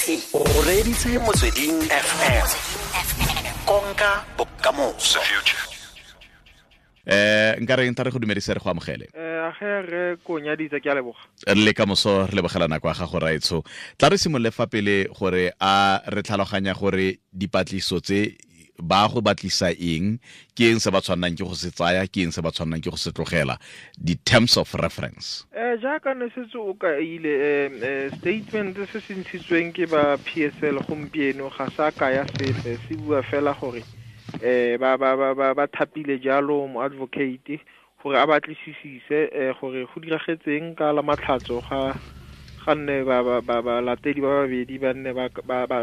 O reditse Motsweding FM. Konka bokamoso. Nka re nta re go dumedise, re go amogele. Age re ko nyaditse, ke a leboga. Re le ka moso, re lebogela nako ya gago, raetsho. Tla re simolole fa pele gore a re tlhaloganya gore dipatliso tse ba go batlisa eng, ke eng se ba tshwannang ke go se tsaya, ke eng se ba tshwannang ke go se tlogela, di-terms of reference. Jaaka ne setse o kaile, statement se se ntshitsweng ke ba PSL gompieno ga sa kaya sepe, se bua fela gore ba thapile jalo mo advocate gore a batlisisise gore go diragetseng ka la Matlhatso ga nne ba latedi ba babedi ba nne ba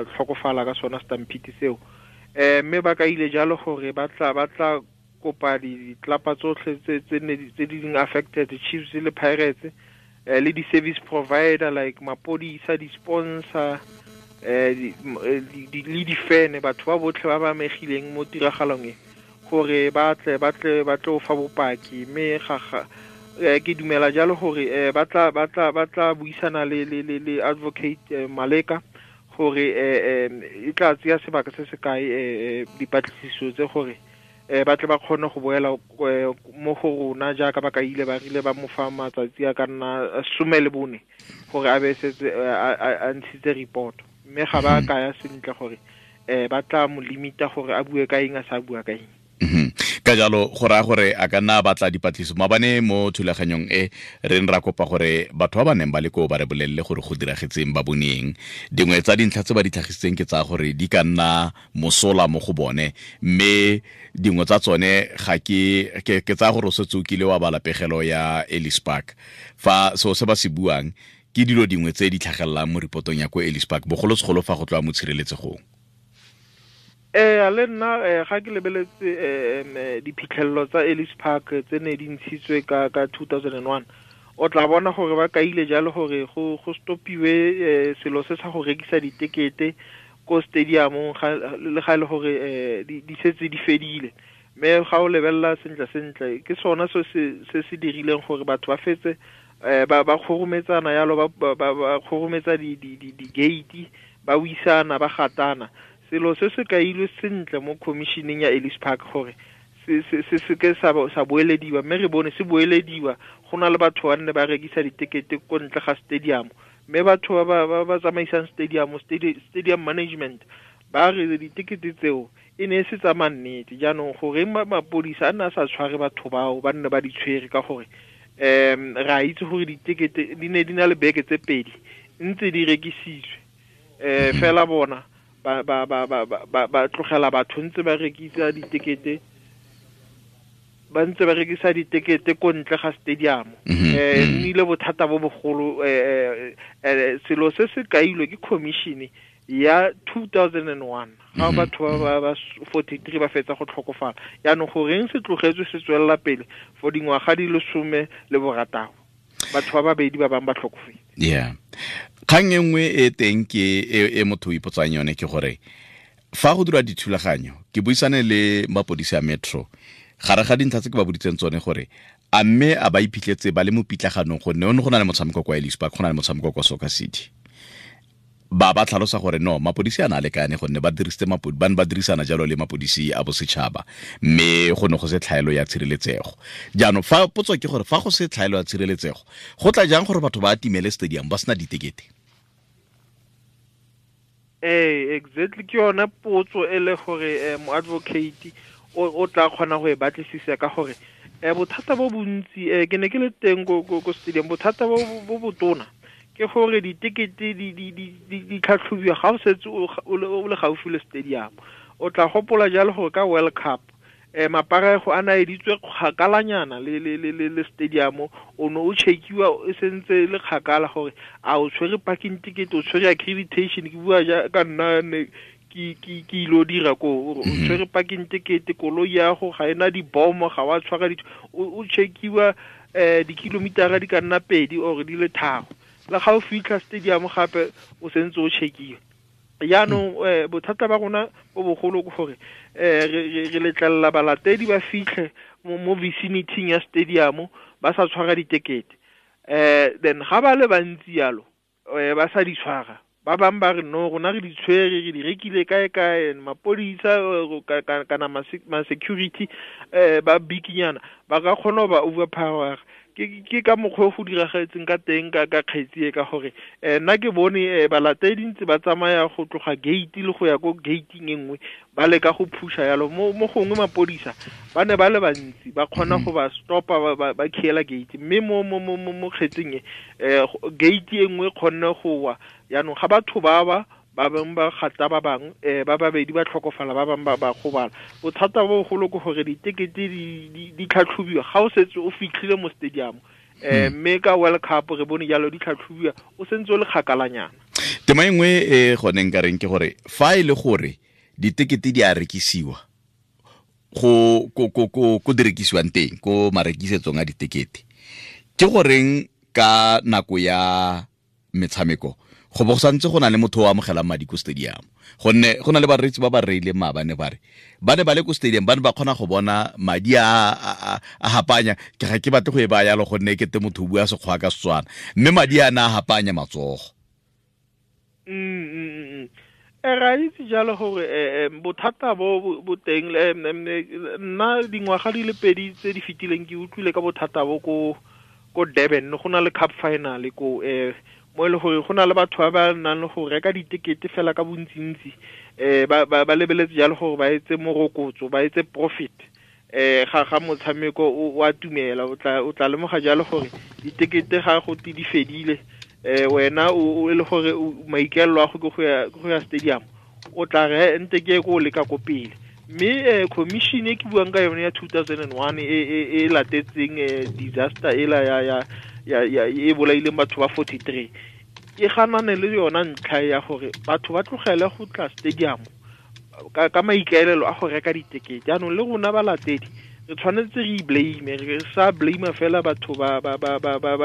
tlhokofala ka sona stampede seo. Mme ba kaile jalo gore ba tla kopa ditlapa tsotlhe tse di leng affected, Chiefs le Pirates, le di-service provider like mapodisa, di-sponsor, le di-fan, batho ba botlhe ba ba amegileng mo tiragalong e, gore ba tle fa bopaki. Mme ga ke dumela jalo gore ba tla buisana le advocate Maleka gore e tla tseya sebaka se se kae dipatlisiso tse, gore ba tle ba kgone go boela mo go rona jaaka ba kaile ba rile ba mo fa matsatsi a ka nna 14 gore a be setse a ntshitse report. Mme ga ba kaya sentle gore ba tla mo limita gore a bue ka eng, a sa bua ka eng. Ka jalo go raya gore a ka nna a batla dipatlisiso. Mabane mo thulaganyong e re ne ra kopa gore batho ba ba neng ba le koo ba re bolelele gore go diragetseng, ba boneng. Dingwe tsa dintlha tse ba di tlhagisitseng ke tsa gore di ka nna mosola mo go bone, mme dingwe tsa tsone ga ke tsaya gore o setse o kile wa bala pegelo ya Ellis Park. Fa seo se ba se buang ke dilo dingwe tse di tlhagelelang mo reportong ya ko Ellis Park, bogolosegolo fa go tloa mo tshireletsegong. Le nna ga ke lebeletse diphitlhelelo tsa Ellis Park tse ne di ntshitswe ka 2001, o tla bona gore ba kaile jalo gore go stopiwe selo se sa go rekisa ditekete ko stadiumong, le ga e le gore di setse di fedile. Mme ga o lebelela sentle sentle, ke sona se se dirileng gore batho ba fetse ba kgorometsana yalo, ba kgorometsa di gate, ba wisana, ba gatana. Selo se se kailwe sentle mo commissioning ya Ellis Park gore se ke sa boelediwa, mme re bone se boelediwa. Go na le batho ba nne ba rekisa ditekete ko ntle ga stadium, mme batho ba tsamaisang stadium, stadium management, ba re ditekete tseo e ne e se tsa mannete. Jaanong goreng mapodisa a nne a sa tshware batho bao ba nne ba di tshwere? Ka gore re a itse gore ditekete di ne di na le beke tse 2 ntse di rekisitswe, fela bona ba tlogela batho ntse ba rekisa ditekete, ba ntse ba rekisa ditekete ko ntle ga stadium. Nnile bothata bo bogolo. Selo se se kailwe ke commission ya 2001 ga batho ba 43 ba fetsa go tlhokofala. Yaanong goreng se tlogetswe se tswelela pele for dingwaga di le 16, batho ba babedi ba bangwe ba tlhokofetse? Yeah, kgang e nngwe e teng ke e motho o ipotsang yone ke gore fa go dira dithulaganyo, ke buisane le mapodisi a Metro, gare ga dintlha tse ke ba boditseng tsone gore a mme a ba iphitlhetse ba le mo pitlaganong, gonne one go na le motshameko kwa Ellis Park, go na le motshameko kwa Soccer City. Ba tlhalosa gore no, mapodisi a na lekane, gonne ba dirisitse ba ne ba dirisana jalo le mapodisi a bosetšhaba, mme go ne go se tlhaelo ya tshireletsego. Jaanong fa potso ke gore fa go se tlhaelo ya tshireletsego, go tla jang gore batho ba atimele stadium ba sena ditekete? Ee, exactly, ke yone potso e le gore mo advocate o tla kgona go e batlisisa, ka gore bothata bo bontsi, ke ne ke le teng ko stadium, bothata bo botona ke gore ditekete di tlhatlhobiwa ga o setse o le gaufi le stadium. O tla gopola jalo gore ka World Cup maparego a naeditswe kgakalanyana le stadium, o ne o checkiwa e sentse le kgakala gore a o tshwere parking ticket, o tshwere accreditation. Ke bua ja ka nna ne ke ilo dira ko, o tshwere parking ticket, koloi ya go ga ena dibomo, ga wa tshwara o checkiwa dikilomitara di ka nna 2 or di le 3. Le ga o fitlha stadium gape o sentse o checkiwa. Jaanong bothata ba rona bo bogolo ke gore re letlelela balatedi ba fitlhe mo vicinity ya stadium ba sa tshwara ditekete, then ga ba le bantsi yalo, ba sa di tshwara. Ba bangwe ba re no, rona re di tshwere, re di rekile kae kae, mapodisa kana ma-security ba bikinyana ba ka kgona go ba overpower. Ke ka mokgwa o go diragetseng ka teng ka kgetsi e, ka gore nna ke bone balatedi ntse ba tsamaya go tloga gate le go ya ko gating e nngwe, ba leka go phusha yalo. Mo gongwe mapodisa ba ne ba le bantsi, ba kgona go ba stopa, ba khiela gate. Mme mo kgetsing e, gate e nngwe kgonne go wa. Jaanong ga batho ba ba bangwe ba gata ba bangwe, ba babedi ba tlhokofala, ba bangwe ba gobala. Bothata bo bogolo ke gore ditekete di tlhatlhobiwa ga o setse o fitlhile mo stadium. Mme ka World Cup re bone jalo di tlhatlhobiwa o sentse o le kgakalanyana. Tema e nngwe e gone nka reng ke gore fa e le gore ditekete di a rekisiwa go ko di rekisiwang teng ko marekisetsong a ditekete, ke goreng ka nako ya metshameko go bo santse go na le motho o amogelang madi ko stadium? Gonne go na le bareetsi ba ba reileng maabane ba re ba ne ba le ko stadium, ba ne ba kgona go bona madi a hapanya. Ke ga ke batle go e baya yalo gonne ke te motho o bua Sekgowa ka Setswana, mme madi a na a hapanya matsogo. Ra itse jalo gore bothata bo teng. Nna dingwaga di le pedi tse di fetileng ke utlwile ka bothata bo ko Durban, go na le cup final ko mo e le gore go na le batho ba ba nang le go reka ditekete fela ka bontsintsi, ba lebeletse jalo gore ba etse morokotso, ba etse profit. Ga motshameko o a tumela, o tla lemoga jalo gore ditekete ga go te di fedile, wena o e le gore maikaelelo a go ke go ya stadium, o tla re nte ke ko leka ko pele. Mme commission e ke buang ka yone ya 2001 e latetseng disaster ela ya e bolaileng batho ba 43, e ganane le yona ntlha ya gore batho ba tlogele go tla stadium ka maikaelelo a go reka ditekete. Jaanong le rona balatedi re tshwanetse re blame, re sa blame fela batho ba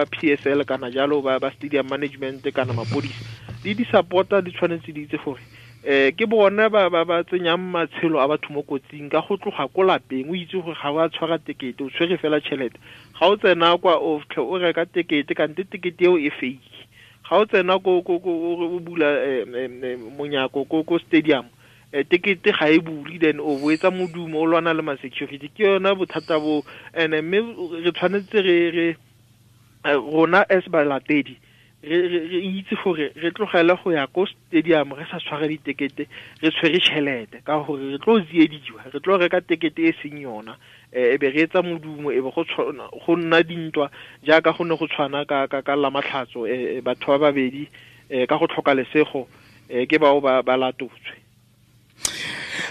PSL kana jalo ba stadium management kana mapodisa le di-supporter di tshwanetse di itse gore ke bona ba tsenyang matshelo a batho mo kotsing ka go tloga ko lapeng. O itse gore ga o a tshwara tekete, o tshwere fela tšhelete. Ga o tsena kwa o reka tekete, kante tekete eo e fake. Ga o tsena ko o bula monyako ko stadium, tekete ga e bule, then o boetsa modumo o lwana le ma-security. Ke yona bothata bo. And mme re tshwanetse re rona as balatedi re itse gore re tlogele go ya ko stadium re sa tshware ditekete, re tshwere tšhelete, ka gore re tlo tsiediwa, re tlo reka tekete e seng yona, e be re etsa modumo, e be go nna dintwa jaaka go ne go tshwana ka Lamatlhatso, batho ba babedi ka go tlhoka lesego ke bao ba latotswe.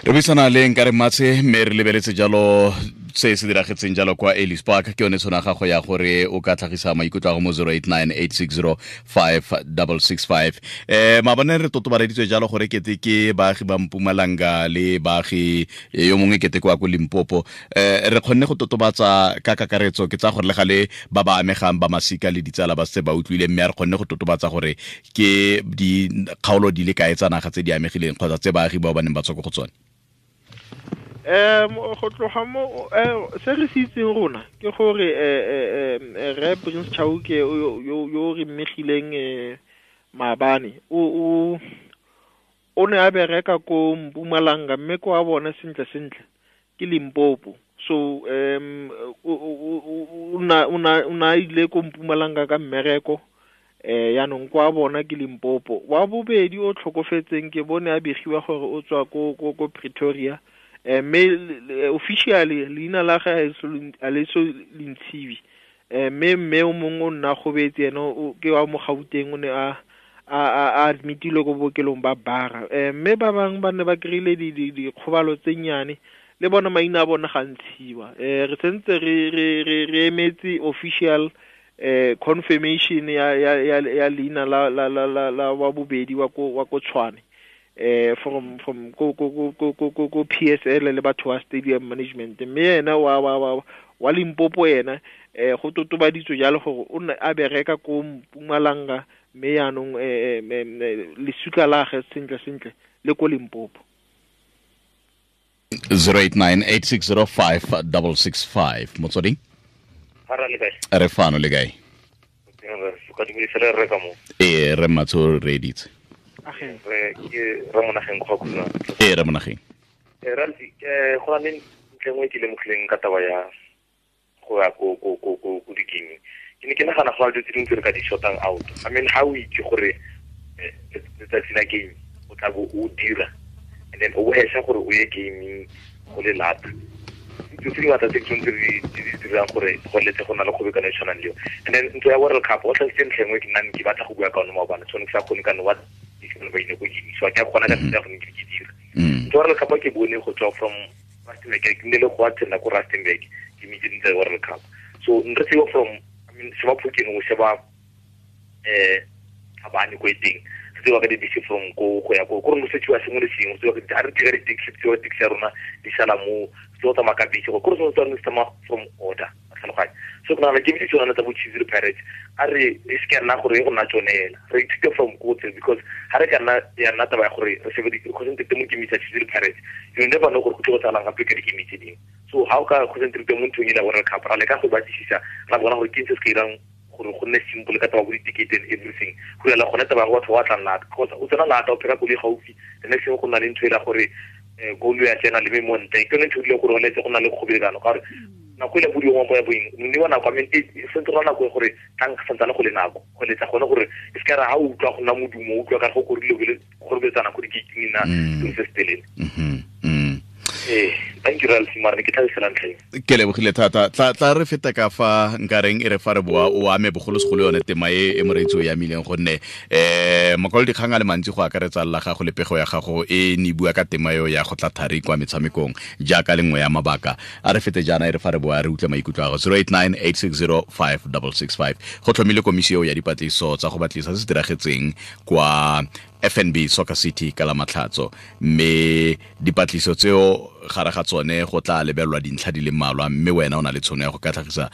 Re buisana le Nkare Matse, mme re lebeletse jalo se se diragetseng jalo kwa Ellis Park. Ke yone tshwana gago ya gore o ka tlhagisa maikutlo a go mo 0898605665. Maabane re totobareditswe jalo gore kete ke baagi ba Mpumalanga le baagi yo mongwe kete kwa ko Limpopo. Re kgonne go totobatsa ka kakaretso, ke tsa gore le gale ba ba amegang ba masika le ditsala ba se ba utlwile, mme re kgonne go totobatsa gore ke dikgaolo di le kae tsa naga tse di amegileng kgotsa tse baagi bao ba neng ba tswa ko go tsone. Go tloga mo se re se itseng rona ke gore re Prince Chauke yo re mmegileng maabane o ne a bereka ko Mpumalanga, mme ko a bona sentle sentle ke Limpopo. So o na ile ko Mpumalanga ka mmereko, yaanong kwa bona ke Limpopo. Wa bobedi o tlhokofetseng ke bone a begiwa gore o tswa ko Pretoria, mme officially leina la gagwe a le so le ntshiwe. Mme o mongwe o nna gobetse ene ke wa mo Gauteng, o ne a admitilwe ko bookelong ba Bara. Mme ba bangwe ba ne ba kry-ile dikgobalo tse nnyane, le bona maina a bona ga ntshiwa. Re sentse re emetse official confirmation ya leina la wa bobedi wa ko Tshwane, from ko PSL le batho ba stadium management. Mme ena wa Limpopo ena go totobaditswe jalo gore o ne a bereka ko Mpumalanga, mme yaanong lesuka la gagwe sentle sentle le ko Limpopo. 0898605665 Motsweding. Re fano le kae? Ee, re Matso re editse. Re ke Ramonageng go khuna. Ee, Ramonageng. Ralfi, go na le ntlha nngwe ke lemogileng ka taba ya go ya ko di-gaming. Ke ne ke nagana go na le dilo tse dingwe tse re ka di shortang out. I mean, ha o itse gore letsatsi la game o tla bo o dira, and then o hesha gore o ye gaming go le lata. Dilo tse dingata tse ke tshwanetse re di dirang gore go letse go na le kgobokano e tshwanang le eo. And then ntlo ya World Cup, o tlhalositse ntlha e nngwe ke nna ke batla go bua ka one maobane, tshwanetse ke sa kgone ka no wa ba ile go game, so ke a kgona ka tsela ya go ne ke dira. Ntlo ya World Cup ke bone go tswa from Rustenburg, ke nne le go attenda ko Rustenburg, ke mitse ntlo ya World Cup. So nre tseo from, I mean, sheba Phokeng o sheba Thabane ko e teng. Se tsewa ka dibese from ko go ya ko, ko re no setsiwa sengwe le sengwe, se tsewa ka di-, ha re dira di-taxi, se tsewa taxi ya rona di sala mo, se tsewa tsamaya ka bese, ko re tshwanetse re tsamaya from order, a tlhaloganya. So ke nagana ke bitse tsone tsa bo Chiefs le Pirates, a re e se ka nna gore e go nna tsone hela, re ithute from ko tse, because ha re ka nna ya nna taba ya gore re shebe di-, concentrate mo game tsa Chiefs le Pirates, you never know gore go tlo go tsalang gape ka di-game tse dingwe. So ha o ka concentrate mo nthong e la World Cup, ra leka go batlisisa, ra bona gore ke eng se se ka irang gore go nne simple ka taba bo di-ticket and everything. Go ela gone taba ya go batho ba tlang lata, because o tsena lata o pheka koloi gaufi, the next thing go nna le ntho e la gore, koloi ya tsena le me mo ntle. Ke yone ntho e rileng gore o letse go nna le kgobelano, ka gore nako e le bodiwa mo ya boeng, mme wa nako, I mean, e sentse go nna nako e gore tlang santsane go le nako, go letsa gone gore e se ka ra ha o utlwa go nna modumo, o utlwa ka go korile go le kgorobetsana ko di-gate-ing nna, selo se se telele. Thank you, Ralph, mara ne ke tlhalosela ntlha eo. Ke lebogile thata. Tla re feta ka fa nkareng e re fa re boa o ame bogolosegolo yone tema e e moreetsi o e amileng, gonne, makwalo dikgang a le mantsi go akaretsa la gago le pego ya gago e ne e bua ka tema eo ya go tla thari kwa metshamekong jaaka le nngwe ya mabaka. A re fete jaana e re fa re boa re utlwe maikutlo a gago. Zero eight nine eight six zero five double six five. Go tlhomile komisi eo ya dipatlisiso tsa go batlisa se se diragetseng kwa FNB Soccer City ka la Matlhatso, mme dipatlisiso tseo gare ga tsone go tla lebelelwa dintlha di le mmalwa, mme wena o na le tshono ya go ka tlhagisa.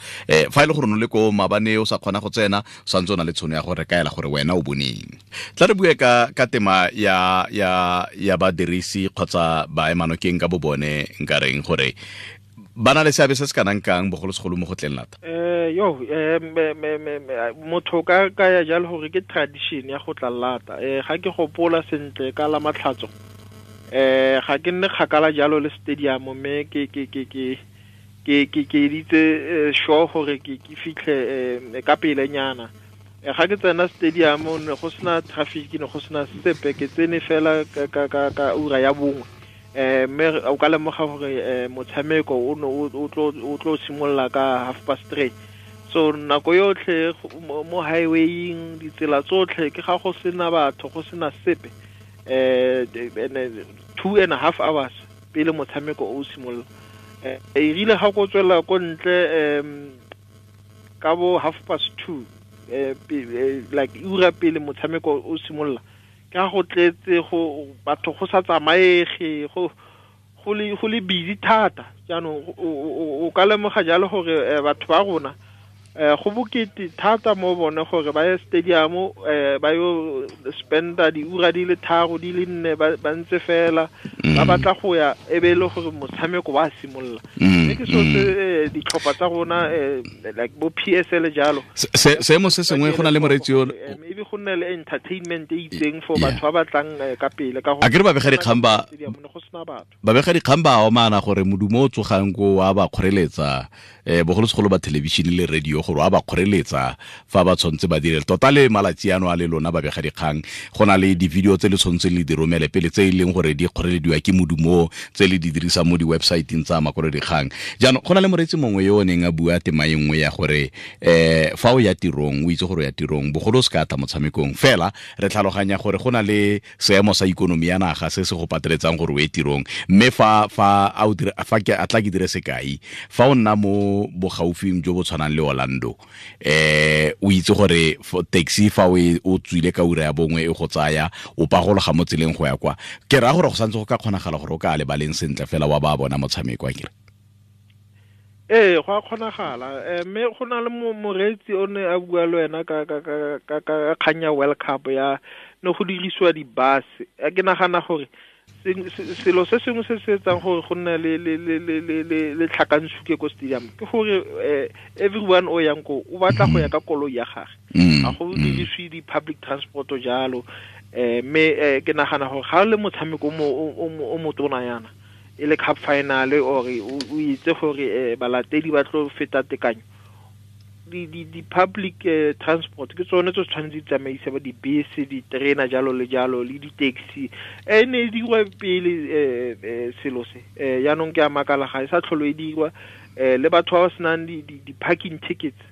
Fa e le gore o ne le ko maabane o sa kgona go tsena, o santse o na le tshono ya go re kaela gore wena o boneng. Tla re bue ka tema ya badirisi kgotsa baemanokeng ka bo bone, nka reng gore ba na le seabe se se kanang kang bogolosegolo mo go tleng lata? Yo, me, me, me, me, motho ka, ka ya jalo gore ke tradition ya go tla lata. Ga ke gopola sentle ka la Matlhatso, ga ke nne kgakala jalo le stadium, mme ke editse sure gore ke fitlhe ka pelenyana. Ga ke tsena stadium, ne go sena traffic, ne go sena sepe, ke tsene fela ka ura ya bongwe. Mme o ka lemoga gore motshameko o ne o tlo simolola ka half past three. So nako yotlhe mo highwaying, ditsela tsotlhe ke ga go sena batho, go sena sepe. 2 and a half hours pele motshameko o simolola. E rile ga go tswela ko ntle, ka bo half past two, like ura pele motshameko o simolola, ka go tletse go batho go sa tsamaege, go le busy thata. Jaanong o ka lemoga jalo gore batho ba rona, go bokete thata mo bone gore ba ye stadium, ba yo spenda diura di le tharo, di le nne, ba ntse fela, ba batla go ya, e be e le gore motshameko wa simolola. Mme ke selo se, ditlhopha tsa rona, like bo PSL jalo. Seemo se sengwe go na le moreetsi yo Maybe go nne le entertainment e itseng for Yeah. batho ba batlang ka pele, ka gore A ke re babega dikgang ba stadium ne go sena batho. Babega dikgang ba omana gore modumo o tsogang ko wa ba kgoreletsa, bogolosegolo ba television le radio, gore wa ba kgoreletsa fa ba tshwanetse ba dire. Tota le malatsi ano a le lona babega dikgang, go na le di-video tse le tshwanetseng le di romele pele tse e leng gore di kgorelediwa ke modumo, tse le di dirisang mo di-website-ing tsa makwalodikgang. Jaanong go na le moreetsi mongwe yo o neng a bua tema e nngwe ya gore, fa o ya tirong, o itse gore o ya tirong, bogolo o se ka tla motshamekong. Fela re tlhaloganya gore go na le seemo sa ikonomi ya naga se se go pateletsang gore o ye tirong. Mme fa, fa a o dira, fa ke, a tla ke dire sekai, fa o nna mo bogaufing jo bo tshwanang le Orlando, o itse gore taxi fa o e, o tswile ka ura ya bongwe e go tsaya, o pagologa mo tseleng go ya kwa. Ke raya gore go santse go ka kgonagala gore o ka lebaleng sentle fela wa ba bona motshameko, a kere? Ee, go a kgonagala. Mme go na le moreetsi o ne a bua le wena ka kgang ya World Cup ya ne go dirisiwa di-bus. Ke nagana gore selo se sengwe se se etsang gore go nne le tlhakantshuke ko stadium ke gore everyone o yang ko o batla go ya ka koloi ya gagwe. Ga go dirisiwe di-public transport jalo. Mme ke nagana gore ga le motshameko o motona yana e le cup final or o itse gore balatedi ba tlo feta tekanyo, di public transport ke tsone tse tshwanetse di tsamaise ba dibese, diterena jalo le jalo le di-taxi. E ne e dirwa pele selo se, yaanong ke a makala ga e sa tlholo e dirwa. Le batho ba ba senang di-parking tickets,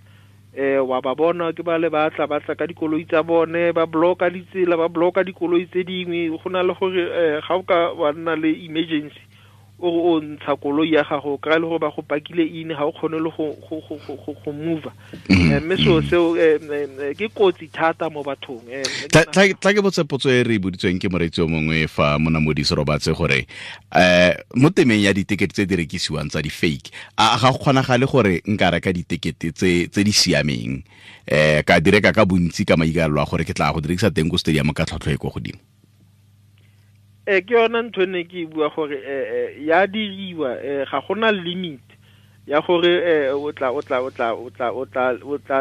wa ba bona ke ba le batla batla ka dikoloi tsa bone, ba blocka ditsela, ba blocka dikoloi tse dingwe. Go na le gore ga o ka wa nna le emergency o ntsha koloi ya gago, kry le gore ba go pakile ine, ga o kgone le go move. Mme seo seo ke kotsi thata mo bathong. Tla ke botse potso e re e boditsweng ke moreetsi o mongwe fa Monamodi Serobatse gore mo temeng ya ditekete tse di rekisiwang tsa di-fake, a ga go kgonagale gore nka reka ditekete tse di siameng, ka di reka ka bontsi ka maikaelelo a gore ke tla go di rekisa teng ko stadium ka tlhwatlhwa e ko godimo? Ke yona ntho ne ke bua gore ya diriwa, ga gona limit ya gore o tla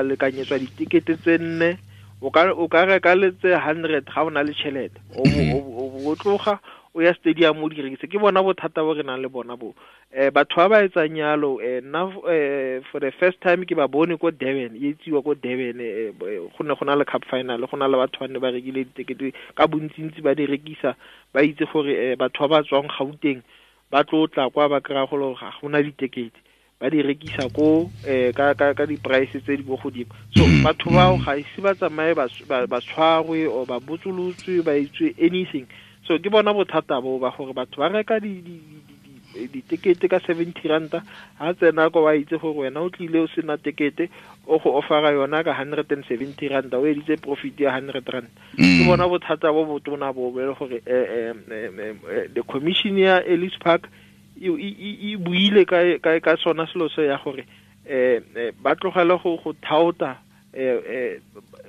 lekanyetswa ditekete tse 4, o ka reka le tse 100 ga o na le tšhelete, o tloga o ya stadium o di rekise. Ke bona bothata bo re nang le bona bo. Batho ba ba etsang yalo, nna for the first time ke ba bone ko Durban, e etsiwa ko Durban, go ne go na le cup final, go na le batho ba ne ba rekile ditekete ka bontsintsi ba di rekisa, ba itse gore batho ba ba tswang Gauteng ba tlo tla kwa ba kry-a gore ga gona ditekete, ba di rekisa ko ka di-price tse di ko godimo. So batho bao ga ise ba tsamaye ba tshwarwe or ba botsolotswe, ba itswe anything. So ke bona bothata bo ba gore batho ba reka ditekete ka 70 ranta, ha tsena ko ba itse gore wena o tlile o sena tekete, o go offera yona ka 170 ranta, o editse profit ya 100 rand. Ke bona bothata bo botona bo bo gore the commission ya Ellis Park e buile ka sona selo se ya gore ba tlogele go thaota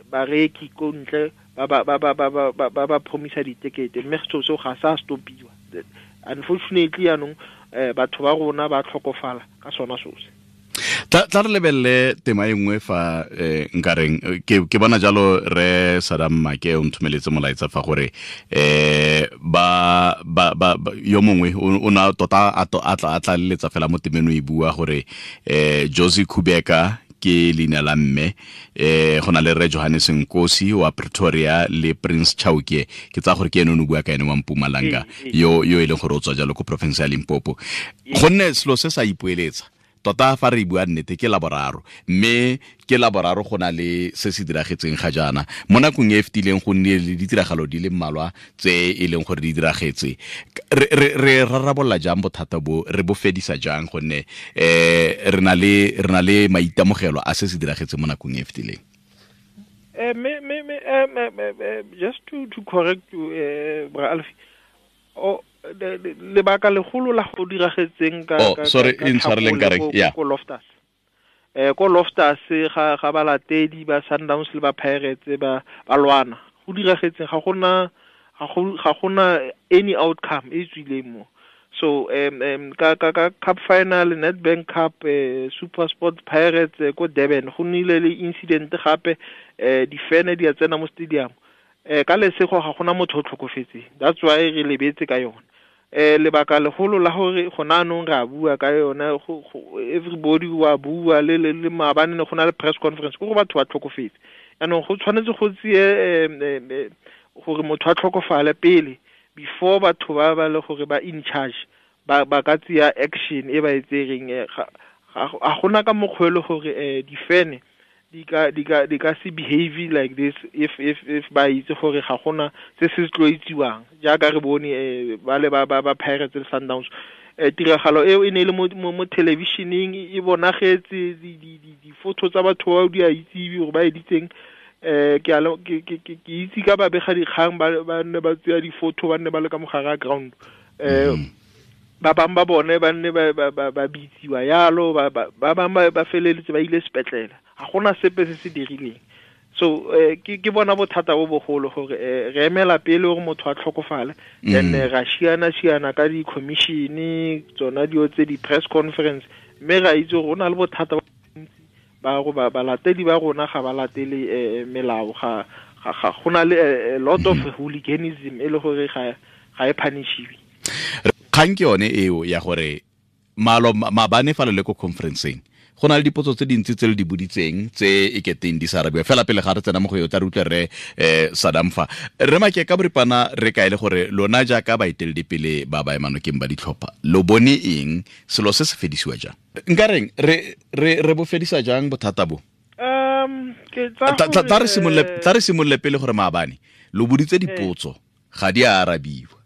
bareki ko ntle ba promisa ditekete, mme seo seo ga sa stopiwa. Unfortunately yaanong batho ba rona ba tlhokofala ka sona seo se. Tla re lebelele tema e nngwe fa nkareng ke bona jalo re Sadam Make o nthomeletse molaetsa fa gore ba yo mongwe o na tota a tla leletsa fela mo temeng o e bua gore Josie Kubeka ke leina la mme, go na le Re Johannes Nkosi wa Pretoria le Prince Chauke, ke tsa gore ke ene o bua ka ene wa Mpumalanga yo e leng gore o tswa jalo ko province ya Limpopo. Gonne selo se sa ipoeletsa tota fa re bua nnete ke laboraro, mme ke laboraro go na le se se diragetseng ga jaana mo nakong e fetileng, go nnile le ditiragalo di le mmalwa tse e leng gore di diragetse. Re rarabolola jang bothata bo, re bo fedisa jang, gonne re na le maitemogelo a se se diragetseng mo nakong e fetileng? Just to correct you, Bra Alfie, lebaka legolo la go diragetseng ka sorry, intshwareleng ka reng, yeah, ko Loftus. Ko Loftus ga balatedi ba Sundowns le ba Pirates ba lwana. Go diragetseng ga gona any outcome e tswileng mo. So ka cup final, Nedbank Cup, Super Sport Pirates ko Durban go nnile le incident gape, difene di a tsena mo stadium. Ka lesego ga gona motho o tlhokofetseng, that's why re lebetse ka yone. Lebaka legolo la gore gona anong re a bua ka yone, everybody wa bua le maabane ne go na le press conference, ke gore batho ba tlhokofetse. Yaanong go tshwanetse go tseye gore motho a tlhokofale pele before batho ba le gore ba in charge ba ka tseya action e ba e tsereng. Ga gona ka mokgwa e le gore difene di ka se behave like this if ba itse gore ga gona se se tlo itsiwang, jaaka re bone ba le ba Pirates le Sundowns. Tiragalo eo e ne e le mo televisioneng, e bonagetse di-photo tsa batho bao di a itsiwe gore ba editseng. Ke itse ka babega dikgang ba nne ba tseya di-photo, ba nne ba le ka mogare a ground. Ba bangwe ba bone ba nne ba bitsiwa yalo, ba bangwe ba feleletse ba ile sepetlele, ga gona sepe se se dirileng. So ke bona bothata bo bogolo gore re emela pele gore motho a tlhokofale, then ra šiana ka di-commission tsona dio tse di-press conference, mme ra itse gore go na le bothata ba go balatedi ba rona ga ba latele melao, ga Ga go na le a lot of hooliganism e le gore ga e punishiwe. Kgang ke yone eo ya gore malo mabane fa le ko conferenceng go na le dipotso tse dintsi tse le di boditseng tse e keteng di sa arabiwa fela pele ga re tsena mo go eo tla re utlwe re Sadam fa re make ka boripana re kae le gore lona jaaka baeteledipele ba ba emanokeng ba ditlhopha lo bone eng selo se se fedisiwa jang nka reng re bo fedisa jang bothata bo? Tla re simolole pele gore maabane lo boditse dipotso ga di a arabiwa.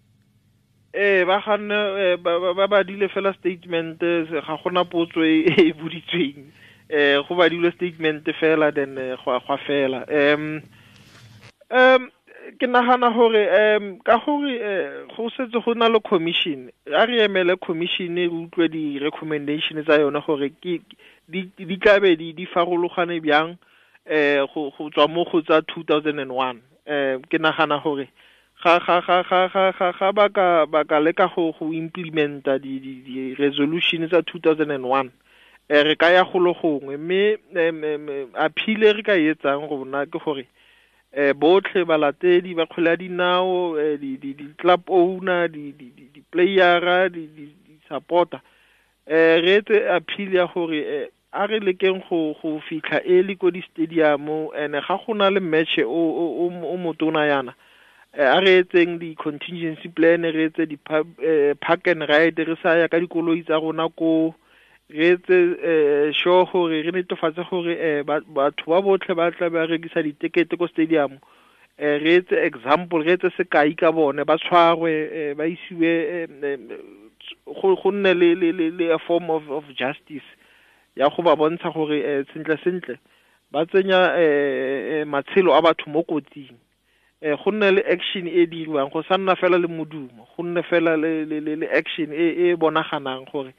Ba ganne ba badile fela statement, ga gona potso e boditsweng, go badile statement fela then go fela. Ke nagana gore ka gore go setse go na le commission, a re emele commission re utlwe di recommendation tsa yone gore ke di tlabe di farologane bjang go tswa mo go tsa 2001. Ke nagana gore ga ba ka leka go implementa di resolution tsa 2001, re ka ya golo gongwe. Mme appeal re ka etsang rona ke gore botlhe balatedi ba kgwele ya dinao, di club owner, di playera, di supporter, re etse appeal ya gore a re lekeng go fitlha early ko di stadium, and ga gona le match o motona yana, a re etseng di contingency plan, re etse di park and ride, re sa ya ka dikoloi tsa rona ko, re etse sure gore re netefatse gore batho ba botlhe ba tla ba rekisa ditekete ko stadium, re etse example, re etse sekai ka bone, ba tshwarwe, ba isiwe go nne le a form of justice ya go ba bontsha gore sentle sentle ba tsenya matshelo a batho mo kotsing. Go nne le action e diriwang, go sa nna fela le modumo, go nne fela le action e bonaganang gore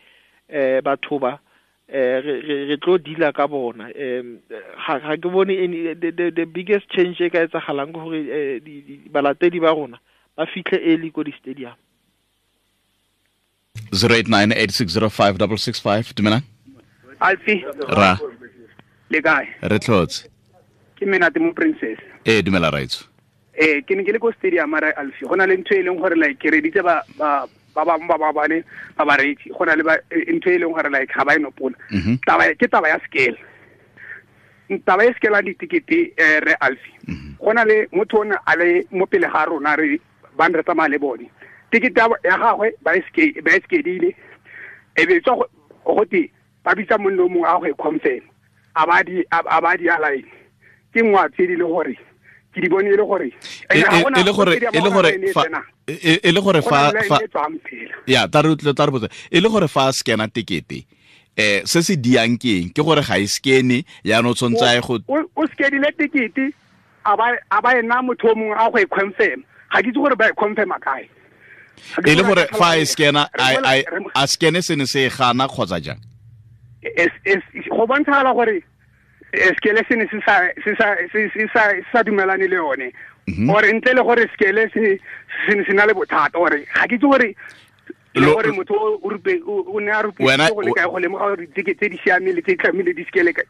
batho ba re tlo deala ka bona. Ga ke bone any the biggest change e ka etsagalang ke gore balatedi ba rona ba fitlhe early ko di stadium. 0898605665 dumela Alfi ra le kae? Re tlhotse. Ke Menate mo Princess. Dumela raitso. Ke ne ke le ko stadium ra Alfi, go na le ntho e leng gore like ke reditse ba ba bangwe ba ba bane ba bareetsi, go na le ntho e leng gore like ga ba e nopola. Taba ke taba ya scale, taba e scale ditikete re Alfi. Go na le motho o ne a le mo pele ga rona re ba re tsamaya le bone, tikete ya gagwe ba e skedile, e be tswa go te ba bitsa monna o mongwe a go e confirm, a ba di a line ke nngwe a tse di le gore ke di bone e le gore e le gore fa ya ta re botsa e le gore fa scanna tekete se se diang ke eng? Ke gore ga e scanne ya no tshwantse a go o skedile tekete a ba ena motho o mongwe a go e confirm, ga ke itse gore ba e confirm kae. E le gore fa e scanna a scanne se ne se gana kgotsa jang? Go bontshagala gore skele se ne se sa dumelane le yone, ore ntle le gore skele se ne se na le bothata, ore ga ke itse gore le gore motho o ne a rupile go le kae go lemoga gore ditekete tse di siameng le tse di tlamehile di skele ke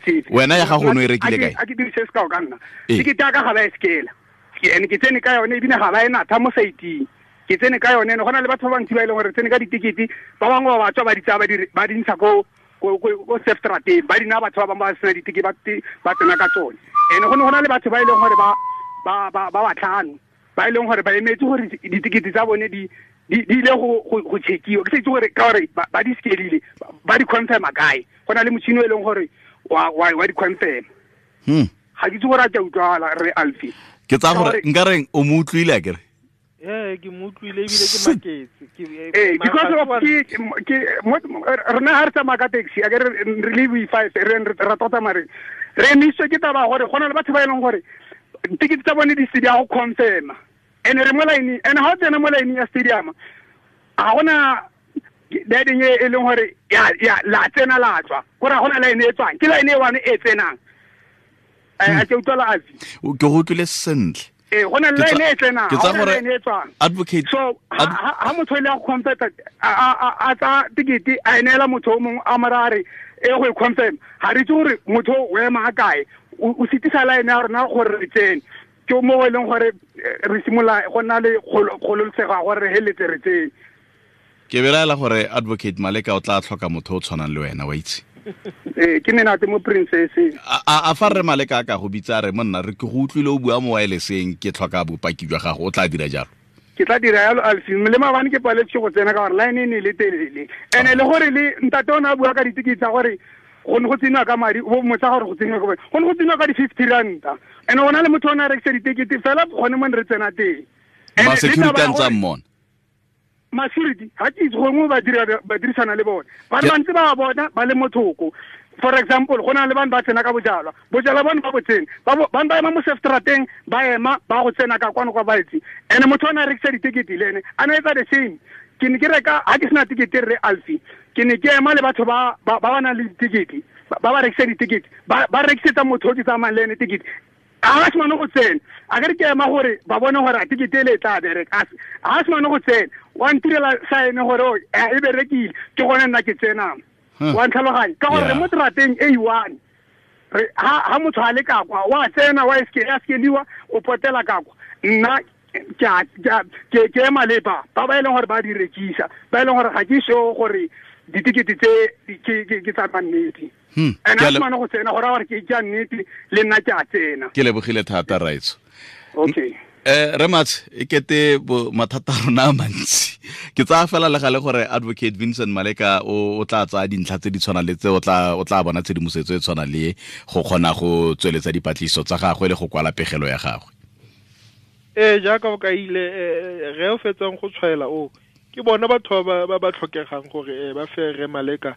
tsefe. Wena ya gago o ne e rekile kae? A ke dirise sekao ka nna, tekete ya ka ga ba e skela, ene ke tsene ka yone ebile ga ba e natha mo saiting, ke tsene ka yone. Go na le batho ba bantsi ba e leng gore tsene ka ditekete, ba bangwe ba batswa ba di tsaya ba di ntsha ko sefterateng, ba dina batho ba bangwe ba sena diteke ba tsena ka tsone. Ene go ne go na le batho ba e leng gore ba batlhano ba e leng gore ba emetse gore ditekete tsa bone di ile go checkiwa, ke sa itse gore ka gore ba di skelile ba di confirma kae. Go na le motšhini o e leng gore wa di confirm. Ga ke itse gore a ke a utlwala re Alfi. Ke tsaya gore nka reng o mo utlwile akere? Ke mo utlwile ebile ke maketse. Because of ke rena ha re tsamaya ka taxi, a ke re le we five re ra tota mare re emiswe ke taba gore go na le batho ba e leng gore tikete tsa bone di se di a go confirma, ene re mo line, ene ha o tsena mo line ya stadium ga gona line e leng gore ya la tsena la tswa, gore ga gona line e tswang, ke line e one e tsenang. A ke utlwala Alfi? Ke go utlwile sentle. Go na le line e tsenang, ke tsa gore advocate so ha motho ile a confirm a tsa tikete a neela motho o mongwe a mara a re e go e confirm, ga re itse gore motho o ema a kae, o sitisa line ya rona gore re tsene. Ke mo e leng gore re simolola go nna le kgololosego ya gore re heletse re tsene. Ke belaela gore Advocate Maleka o tla tlhoka motho o tshwanang le wena, wa itse. Ke menate mo princess. A fa re Maleka ka go bitsa re monna re ke go utlwile o bua mo wirelesseng, ke tlhoka bopaki jwa gago, o tla dira jalo? Ke tla dira jalo Alfi, le maabane ke paletse go tsena ka gore line e ne le telele. Ene le gore le ntate o ne a bua ka ditekete tsa gore go ne go tseniwa ka madi, o motsa gore go tseniwa ka madi. Go ne go tseniwa ka di-50 ranta. Ene go na le motho o ne a rekisa ditekete fela gone mo ne re tsena teng. Ma security a ntse a mmona. Ma-security ga ke itse gongwe ba dirisana le bone. Ba le bantsi ba bona ba le mothoko. For example, go na le bane ba tsena ka bojalwa. Bojalwa bone ba bo tsene. Bane ba ema mo sefterateng, ba ema ba go tsena ka kwano kwa baetsi. Ene motho o ne a rekisa ditekete le ene a ne etsa the same. Ke ne ke reka ha ke sena tekete re Alfi. Ke ne ke ema le batho ba ba nang le ditekete, ba rekisa ditekete, ba rekisetsa motho o ke tsamayang le ene tekete. A se mane go tsena. A ke re ke ema gore ba bone gore a tekete ele e tla bereka. A se mane go tsena. Wa ntirela sign gore e berekile, ke gone nna ke tsenang. Wa ntlhaloganya ka gore mo terateng e one ha motho a le ka kwa wa tsena wa eskeliwa o potela ka kwa. Nna ke ema le ba ba e leng gore ba di rekisa, ba e leng gore ga ke sure gore ditekete tse ke tsa nnete. Ene a mane go tsena gore gore ke ja nnete le nna ke a tsena. Ke lebogile thata Raitso. Okay. Re Matshe, e kete mathata a rona a mantsi. Ke tsaya fela le gale gore Advocate Vincent Maleka o tla tsaya dintlha tse di tshwanang le tse, o tla bona tshedimosetso e tshwanang le go kgona go tsweletsa dipatlisiso tsa gagwe le go kwala pegelo ya gagwe. Jaaka o kaile, re o fetsang go tshwaela o ke bona batho ba ba tlhokegang gore ba fe re Maleka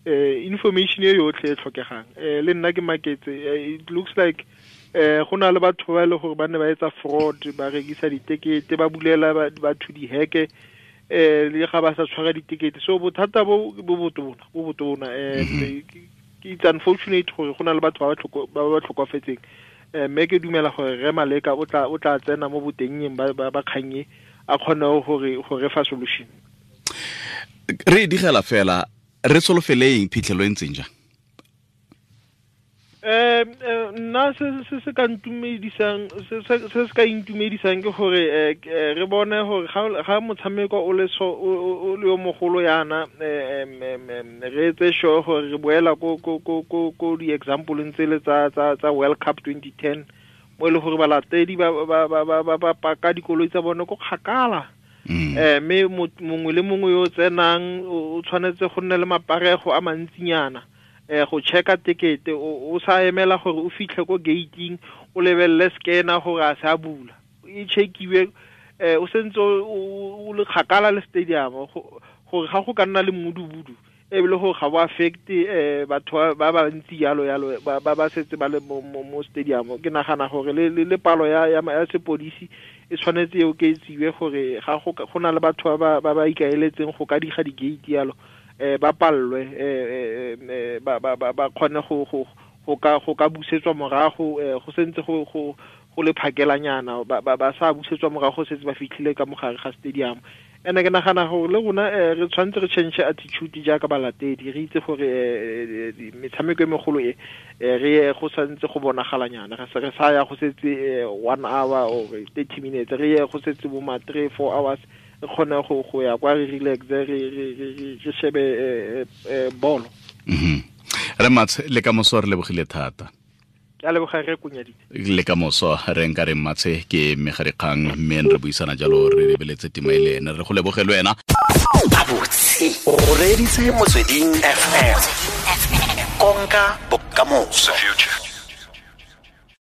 information e yotlhe e tlhokegang. Le nna ke maketse, it looks like go na le batho ba e le gore ba ne ba etsa fraud, ba rekisa ditekete, ba bulela batho diheke, le ga ba sa tshwara ditekete. So bothata bo botona. It's unfortunate gore go na le batho ba ba tlhokofetseng. Mme ke dumela gore re Maleka o tla tsena mo botennyeng ba kgannye a kgone gore re fa solution. Re digela fela re solofeleng phitlhelo e ntseng jang? Nna se se ka ntumedisang, se se ka intumedisang ke gore re bone gore ga motshameko o le o le yo mogolo yana, re etse sure gore re boela ko di-example tse le tsa World Cup 2010 mo e le gore balatedi ba paka dikoloi tsa bone ko kgakala. Mme mongwe le mongwe yo tsenang o tshwanetse go nne le maparego a mantsinyana go checka tekete, o sa emela gore o fitlhe ko gating o lebelele scanner gore a se a bula, e checkiwe o sentse o le kgakala le stadium gore ga go ka nna le mmudubudu ebile gore ga bo affect batho ba ba ntsi yalo yalo ba setse ba le mo stadium. Ke nagana gore le palo ya sepodisi e tshwanetse e oketsiwe gore ga go na le batho ba ba ikaeletseng go ka diga di-gate yalo, ba pallwe, ba kgone go ka busetswa morago, go sentse go le phakelanyana, ba sa busetswa morago setse ba fitlhile ka mogare ga stadium. Ene ke nagana gore le rona re tshwanetse re change attitude jaaka balatedi, re itse gore metshameko e megolo e re ye go santse go bonagalanyana, re sa ya go setse 1 hour or 30 minutes, re ye go setse bo ma 3 4 hours, re kgone go ya kwa re relax, re shebe bolo. Re Matshe, le ka moso re lebogile thata. Ke a leboga re kunyaditse. Le ka moso re nka re Matshe ke mmegadikgang, mme re buisana jalo re lebeletse tema e le ene. Re go leboge le wena. Abotse o reditse Motsweding FM. Konka bokamoso.